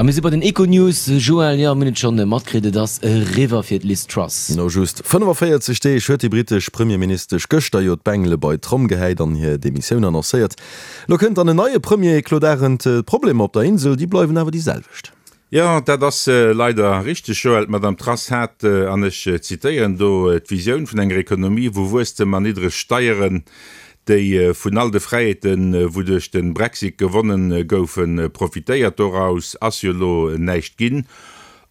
A mir si bei den Econews. Joël, jo, mir hunn et schonn matkritt, et ass eriwwer fir d'Liz Truss. No just 45 Deeg huet déi brittesch Premierministesch gëschter jo d'Bengele bei d'Tromm gehäit an hir Demissioun annoncéiert. Elo kënnt dann en neie Premier, Claude Arend. D'Problemer op der Insel, déi bleiwen awer déi selwecht. Jo, dat ass leider richteg, Joël. D'Madame Truss hat, an ech zitéieren do, d'Visioun vun enger Ekonomie, wou Wuesstem an niddreg Steieren, déi vun all de Fräiheeten, wou duerch de Brexit gewonnen goufen, profitéiert. Doraus ass jo elo näischt ginn.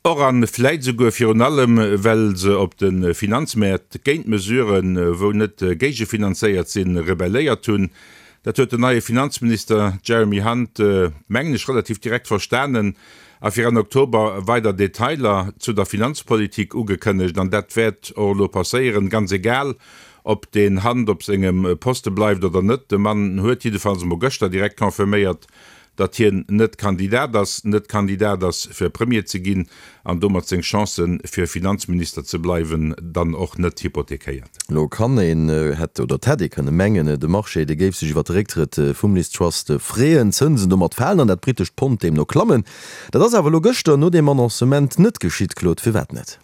Och a vläit esouguer virun allem, well se op de Finanzmäert géint Mesuren, wou net géigefinanzéiert sinn, rebelléiert hunn. Dat huet den neie Finanzminister Jeremy Hunt, mengen ech, relativ direkt verstanen a fir Enn Oktober weider Detailer zu der Finanzpolitik ugekënnegt. An dat wäert och elo passéieren, ganz egal, ob deen Hunt op sengem Poste bleift oder net. De Mann huet jiddefalls emol gëschter direkt confirméiert, datt hien net Kandidat ass, net Kandidat ass fir Premier ze ginn an domat seng Chancen fir Finanzminister ze bleiwen dann och net hypothekéiert. Elo kann een, hätt oder et hätt ee kënne mengen, de Marché dee géif sech iwwer de Récktrëtt vum Liz Truss freeën, d'Zënsen domat falen an dat brittescht Pond deemno klammen. Dat ass awer elo gëschter no deem Annoncement net geschitt, Claude. Firwat net?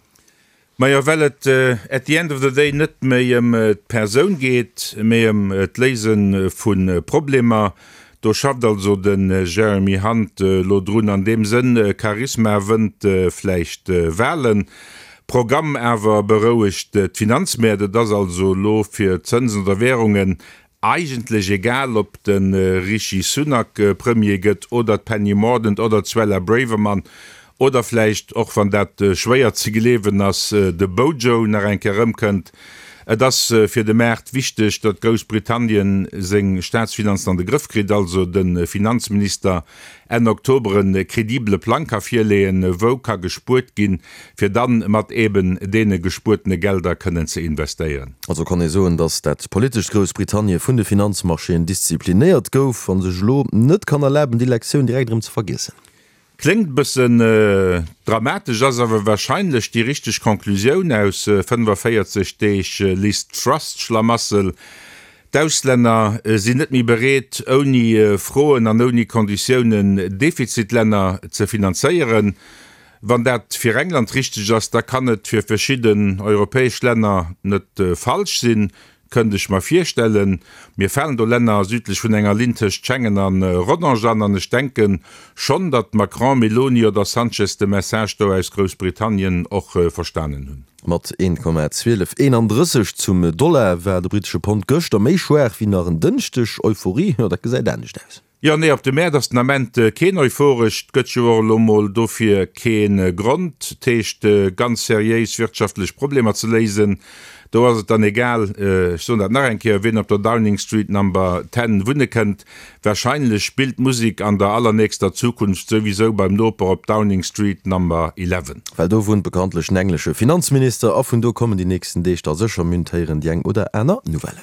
Majo, well et at the end of the day net méi ëm d'Persoun geet, mee ëm d'Léise vu Problemer. Do schafft also den Jeremy Hunt elo drun. An deem Sënn, Charisma wënnt vläicht Walen, Programm awer berouegt d'Finanzmäert. Et ass also elo fir Zënsen oder Währungen Eigentlech egal ob de Rishi Sunak Premier gëtt oder d'Penny Mordaunt oder d'Suella Braverman oder vläicht, och wann dat schwéier ze gleewen ass, de Bojo nach eng Kéier erëmkënnt. Et ass fir de Maart wichteg, datt Groussbritannien seng Staatsfinanzen an de Grëff kritt, also de Finanzminister Enn Oktober e credibele Plang ka virleeën, wou ka gespuert ginn, fir dann mat eben deene gespuertene Gelder kënnen ze investéieren. Also kann ee soen, datt dat politescht Groussbritannie vun de Finanzmarchéen disziplinéiert gouf a sech elo net kann erlaben, déi Lektioun direkt erëm ze vergiessen. Kléngt e bëssen dramatesch, ass awer wahrscheinlech déi richteg Conclusioun aus 45 Deeg Liz Truss-Schlamassel. D'Auslänner sinn net méi bereet, ouni Froen an ouni Konditiounen Defizitlänner ze finanzéieren. Wann dat fir England richteg ass, da kann et fir verschidden europäesch Länner net falsch sinn, kënnt ech mer virstellen. Mir falen do Länner südlech vun enger Linn tëscht Schengen a Rodange an, an ech denke schonn, datt Macron, Meloni oder Sanchez de Message do aus Groussbritannien och verstanen hunn. Mat 1,1231 zum Dollar war de brittesche Pond gëschter méi schwaach wéi nach en Dënschdeg. Euphorie, jo dat gesäit anescht aus. Jo, nee, op de Mäert ass den Ament keen euphoresch. 't gëtt jo och elo mol dofir kee Grond. 't heescht ganz seriéis wirtschaftlech Problemer ze léisen. Do ass et dann egal, ech soen dat nach eng Kéier, wien op der Downing Street Number 10 wunne kënnt. Wahrscheinlech spillt d'Musik an der allernächster Zukunft souwisou beim Noper op Downing Street Number 11. Well do wunnt bekanntlech den englesche Finanzminister a vun do kommen déi nächsten Deeg da sécher, mir hunn d'héieren, déi eng oder aner Nouvelle.